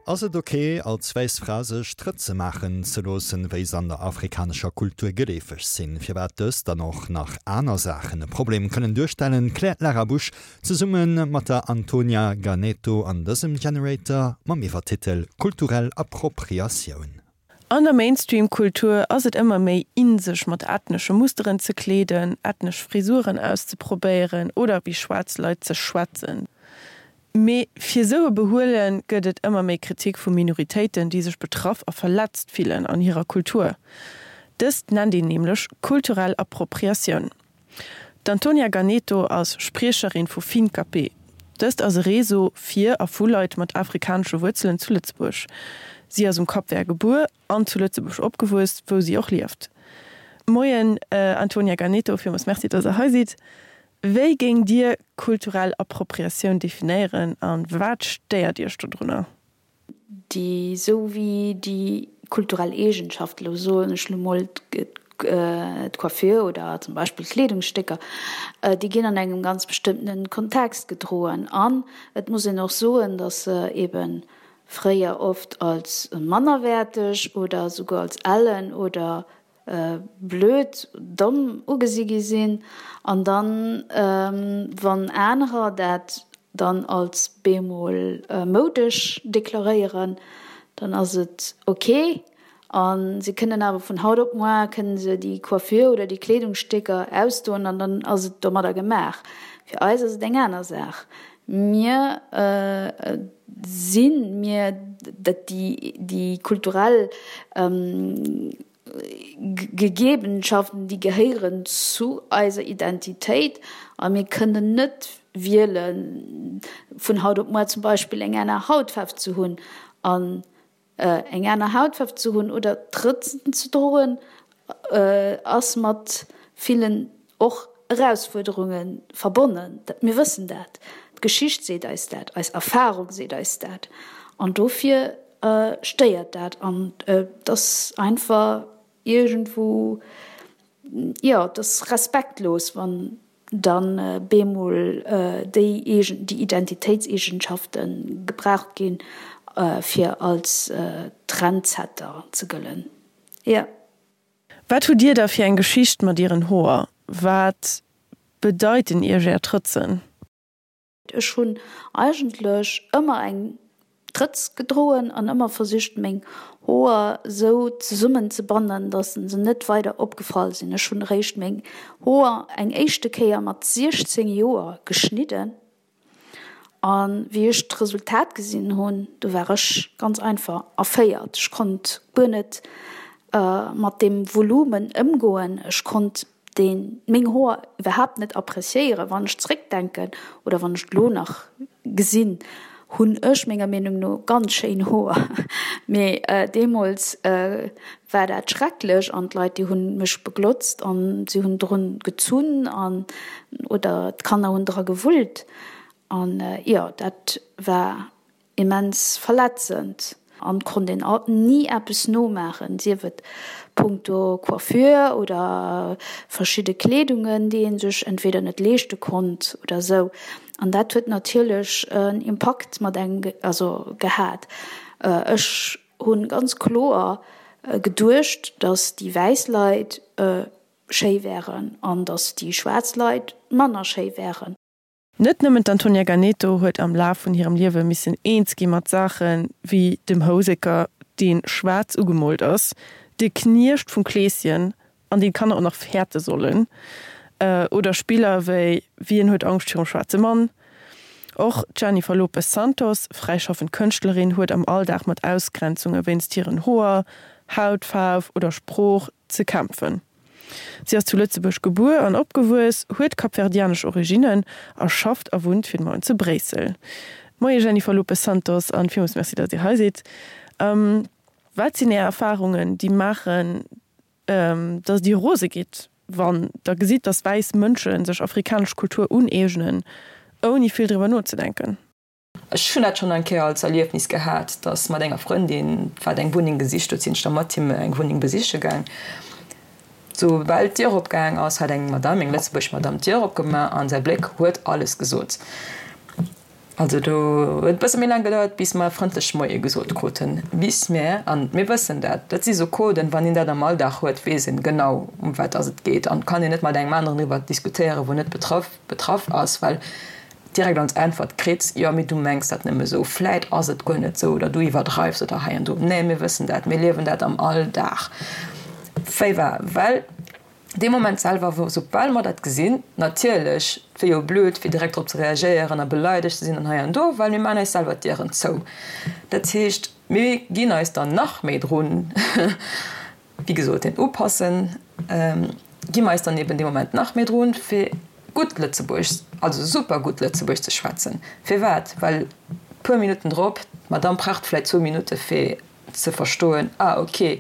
Ass et ok, als wäiss Fra sech Trëtze maachen ze loossen, wéi se an der afrikanescher Kultur geleefeg sinn? Firwat dëst an och nach aner Saachen e Problem kënnen duerstellen, kläert d'Lara Busch zesumme mat der Antonia Ganeto an dësem Generator mam Iwwertitel Kulturell Appropriatioun. An der Mainstream-Kultur ass et ëmmer méi in sech mat ethnesche Musteren ze kleeden, ethnesch Frisuren auszeprobéieren oder wéi schwaarz Leit ze schwätzen. Mee fir esou e Behuele gëtt et ëmmer méi Kritik vu Minoritéiten, déi sech betraff a verletzt fillen an hirer Kultur. Dëst nennt een nämlech kulturell Appropriatioun. D'Antonia Ganeto ass Spriecherin vu Finkapé. Dëst ass e Réseau fir a vu Leit mat afrikanesche Wuerzelen zu Lëtzebuerg. Si ass um Cap Vert gebuer an zu Lëtzebuerg opgewuess, wou si och lieft. Moien Antonia Ganeto, villmools Merci, dass der hei sidd. Wéi géing Dir kulturell Appropriatioun definéieren a wat stéiert Iech dodrunner? Déi sou wéi déi kulturell Eegenschaften, elo soen ech lo mol d'Coiffure oder zum Beispill d'Kleedungsstécker, déi ginn an engem ganz bestëmmtene Kontext gedroen. An et muss een och soen, datt se eebe fréier oft als mannerwäerteg oder souguer als ellen oder blöd, domm ugesi gi sinn, an dann, wann anerer dat dann als bemol moudesch deklaréieren, dann ass et ok, a se kënnen awer vun haut op moar kënnen se déi Coiffure oder déi Kleedungsstécker ausdoen an dann ass et domadder gemaach. Fir eis ass et eng aner Saach. Mir sinn, mir, dat déi kulturell Gegebenschaften, déi gehéieren zu eiser Identitéit a mir kënnen net wielen, vun haut op muer zum Beispill eng aner Hautfaarf ze hunn. An Eng aner Hautfaarf ze hunn oder Trëtzen ze droen ass mat villen och Erausfuerderunge verbonnen. Mir wëssen dat, d'Geschicht seet eis dat, eis Erfarung seet eis dat an dofir stéiert dat an et ass einfach iergendwou, jo, et ass respektlos, wann dann bemol déi eegen, déi Identitéitseegenschafte gebraucht ginn, fir als Trendsetter ze gëllen. Jo. Wat hutt Dir da fir eng Geschicht mat Ieren Hoer? Wat bedeiten Iech Är Trëtzen? Ech hunn eigentlech ëmmer eng Trëtz gedroen an ëmmer versicht meng Hoer sou zesummen ze bannen, dass se net weider opgefall sinn. Ech hunn eréischt meng Hoer eng éischte Kéier mat 16 Joer geschnidden an wéi ech d'Resultat gesinn hunn, du war ech ganz einfach erféiert. Ech konnt guer net mat deem Volumen ëmgoen. Ech konnt deen meng Hoer iwwerhaapt net appreciéieren. Wann ech zréckdenken oder wann ech et lo nach gesinn, hunn ech menger Meenung no ganz schéin Hoer, mee deemools war dat schrecklech an d'Leit déi hunn mech beglotzt an si hunn drun gezunn an oder d'Kanner hunn dra gewullt an jo dat war Immens verletzend an konnt een alt ni eppes nomaachen, sief et punkto Coiffure oder verschidde Kleedungen, déi een sech entweder net leeschte konnt oder sou. An dat huet natierlech en Impakt mat engem also gehat. Ech hunn ganz kloer geduecht, dass déi wäiss Leit schéi wären an dass déi schwaarz Leit manner schéi wären. Net nëmmen d'Antonia Ganeto huet am Laf vun hirem Liewe missen eens gi mat Saache wéi dem Houseker, dee schwaarz ugemoolt ass, de Kniecht vum Kleeschen, an deen d'Kanner och nach fäerte sollen, oder Spiller wéi Wien huet Angscht virum schwaarze Mann? Och d'Jennifer Lopes Santos, fräischaffend Kënschtlerin, huet am Alldag mat Ausgrenzunge wéinst hiren Hoer, Hautfaarf oder Sprooch ze kämpfen. Si ass zu Lëtzebuerg gebuer an opgewuess, huet kapverdianesch Originnen a schafft a wunnt fir de Moment zu Bréissel. Moie Jennifer Lopes Santos an villmools Merci, datt Dir hei sidd. Wat sinn Är Erfarungen, déi maachen, datt Dir rose gitt, wann Der gesitt, datt wäiss Mënsche sech afrikanesch Kultur uneegnen, ouni vill driwwer nozedenken? Ech hunn dat schonn eng Kéier als Erliefnis gehat, dass mat enger Frëndin, wat eng Wunneng gesicht huet, sinn ech da mat him eng Wunneng besiche gaang. Soubal d'Dier opgaang ass, hat eng Madame, eng lëtzebuergesch Madame, d'Dier opgemaach an säi Bléck huet alles gesot. Also do huet e bësse méi laang gedauert, bis mer frëndlech Moie gesot kruten, bis mir, an mir wëssen dat, dat si sou Coden, wann een dat am Alldag huet, weess een genau, ëm wat dass et geet an kann een net mat engem aneren driwwer diskutéieren, wou net betraff betraff ass, well direkt als Äntwert kritt, jo, mee du mengs dat nëmme sou, vläit ass et guer net sou oder du iwwerdreifs oder hei an do. Nee, mir wëssen dat, mir liewen dat am Alldag. Wéi war, well Dee Moment selwer, wou, soubal mer dat gesinn, natierlech, et wier jo blöd, fir direkt drop ze reagéieren a beleidegt ze sinn an hei an do, well mir maachen eis selwer d'Dieren zou. Dat heescht, mir ginn eis dann nach méi drun, wéi gesot, deen Upassen, gi mer eis dann eben dee Moment nach méi drun, fir gutt Lëtzebuergesch, also super gutt Lëtzebuergesch ze schwätzen. Firwat? Well puer Minutten drop, d'Madamm braucht vläicht zwou Minutte fir ze verstoen, ah ok,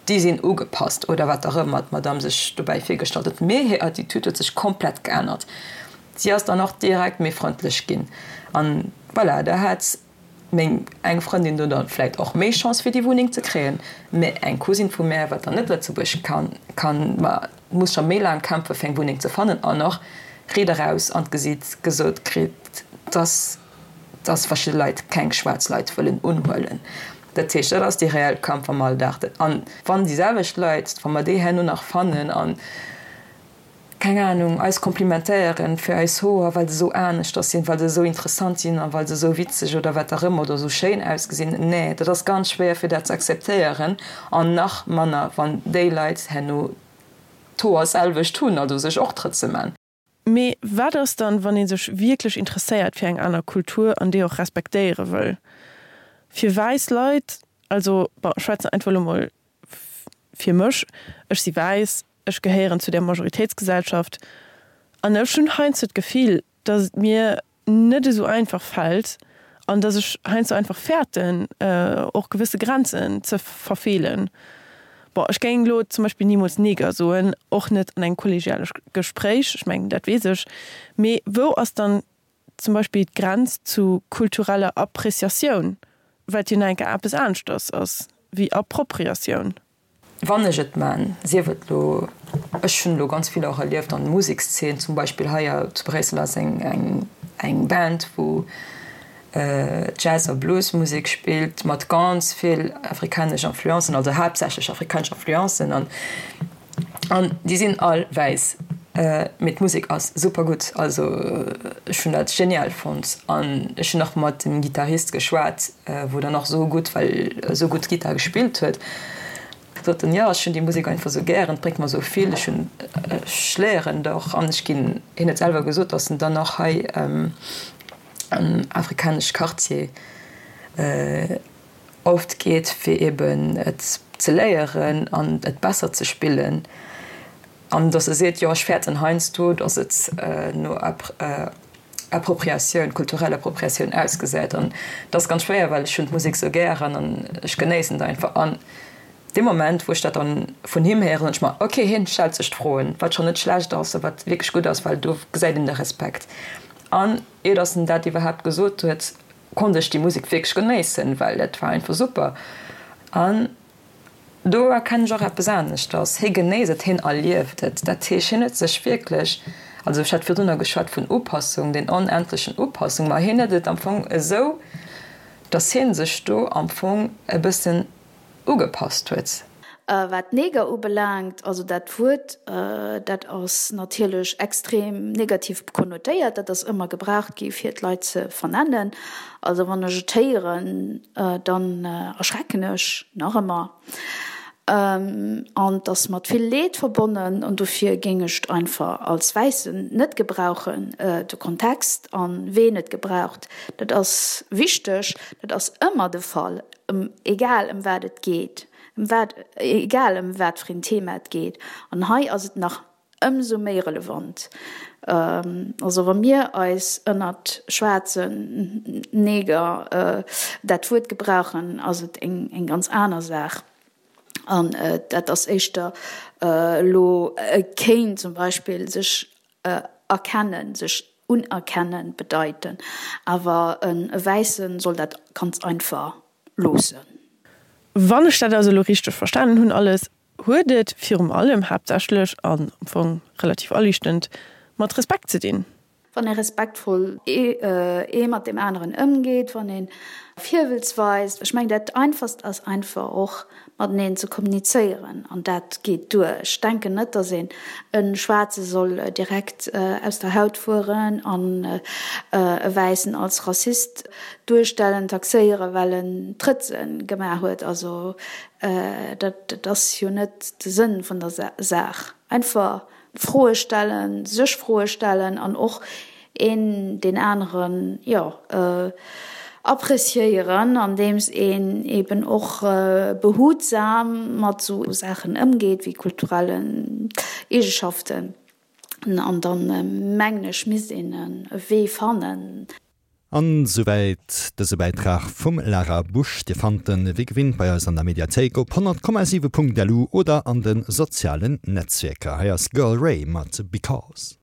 déi sinn ugepasst oder wat och ëmmer d'Madame sech dobäi virgestallt huet. Mee hir Attitude huet sech komplett geännert. Si ass dann och direkt méi frëndlech ginn. An voilà, da hat meng eng Frëndin do dann vläit och méi Chance fir déi Wunneng ze kréien. Mee eng Cousine vu mär, wat dann net Lëtzebuergesch kann, kann, ma muss scho méi laang kämpfe fir eng Wunneng ze fannen an och riit eraus an d'Gesiit gesot kritt, dass dass verschidde Leit keng schwaarz Leit wëllen unhuelen. Dat heescht, dat ass dee reell Kampf am Alldag. An wann déi selwecht Leit, wa mer déi herno nach fannen an, keng Anung, eis komplimentéieren fir eis Hoer, well se esou aneschters sinn, well se esou interessant sinn a well se esou witzeg oder wat och ëmmer oder esou schéin ausgesinn, nee, dat ass ganz schwéier fir dat ze akzeptéieren an nach manner wann déi Leit herno d'Hoer selwecht hunn, also sech och Trëtze man. Mee wat ass dann, wann ee sech wierklech interesséiert fir eng aner Kultur an déi och respektéiere wëll? Fir wäiss Leit, also bon, ech schwätzen einfach elo mol fir mech, ech si wäiss, ech gehéieren zu der Majoritéitsgesellschaft an ech hunn heiansdo d'Gefill, datt et mir net esou einfach fält an dass ech heiansdo einfach fäerten, och gewësse Grenzen ze verfeelen. Bon, ech géing elo zum Beispill nimools Neger soen, och net an engem kollegiale Gespréich, ech mengen, dat weess ech. Mee wou ass dann zum Beispill d'Grenz zu kultureller Appreciatioun, wat jo nach eng Kéier eppes aneschters ass wéi Appropriatioun? Wann ech et man, sief et lo, ech hunn elo ganz vill och erlieft an der Musekszeen, zum Beispill hei zu Bréissel ass eng eng Band wou Jazz a Bluesmusek spillt mat ganz vill afrikanesch Influencen, also haaptsächlech afrikanesch Influencen an an déi sinn all wäiss, mee d'Musek ass super gutt, also ech hunn dat genial fonnt an ech hunn och mat dem Gittarist geschwat, wou dann och esou gutt, well esou gutt Gittar gespillt huet, sot en, jo ech hunn déi Musek einfach esou gären, et bréngt mer esou vill, ech hunn, ech léieren et och an ech ginn, hien huet selwer gesot, datt en dann och hei am afrikanesch Quartier oft geet fir eben et ze léieren an et besser ze spillen an datt e seet, jo ech fäerten heiansdo, datt et no Appropriatioun, kulturell Appropriatioun ausgesäit an dat ass ganz schwéier, well ech hunn d'Musek sou gären an ech genéissen et einfach an dee Moment wou ech dat dann vun him héieren, hunn ech mer, ok hien stellt sech d'Froen, wat schonn net schlecht ass a wat wierklech gutt ass, well do gesäit een de Respekt an ier datt en dat iwwerhaapt gesot huet, konnt ech déi Musek wierklech genéissen, well dat war einfach super an Do erkennen ech och eppes aneschters, Hie genéisst et, hien erlieft et. Dat heescht, hien huet sech wierklech, also ech hat virdrunner geschwat vun Upassung, den onendlechen Upassung, ma hien huet et am Fong esou, datt hie sech do am Fong e bëssen ugepasst huet. Wat Neger ubelaangt, also dat Wuert, dat ass natierlech extrem negativ konnotéiert. Dat ass ëmmer gebraucht gi fir d'Leit ze vernennen. Also wann ech et héieren, dann erschrecken ech nach ëmmer. An et ass mat vill Leed verbonnen an dofir géing ech et einfach als Wäissen net gebrauchen. De Kontext an ween et gebraucht, dat ass wichteg. Dat ass ëmmer de Fall, egal ëm wat et geet, ëm wat, egal ëm wat fir een Thema et geet. An hei ass et nach Ëmsou méi relevant. Also wa mir eis ënnert schwaarzen Neger dat Wuert gebrauchen, ass et eng ganz aner Saach. An dat ass éischter elo, kéint zum Beispill sech erkennen, sech unerkennen bedeiten. Awer e Wäisse soll dat ganz einfach loossen. Wann ech dat also elo richteg verstanen hunn alles, huet et virum allem, haaptsächlech an am Fong relativ aliichtend, mat Respekt ze dinn. Wann ee respektvoll ee mat deem aneren ëmgeet, wann ee Virwëlz weist. Ech mengen, dat Einfachst ass einfach och mateneen ze kommunizéieren an dat geet duer. Ech denken net, datt een e Schwaarze soll direkt aus der Haut fueren an e Wäissen als Rassist duerstellen, taxéieren, well en Trëtze gemaach huet. Also dat ass jo net de Sënn vun der Saach. Einfach Froe stellen, sech Froe stellen an och een deen aneren, jo, appreciéieren, andeems een eben och behutsam mat esou Saachen ëmgeet wéi kulturellen Eegeschaften. An dann, mengen ech, misst een e Wee fannen. An souwäit dëse Bäitrag vum Lara Busch. Dir fannt en wéi gewinnt bei eis an der Mediathéik op 100,7.lu oder an de sozialen Netzwierker. Hei ass Girl Ray mat Because.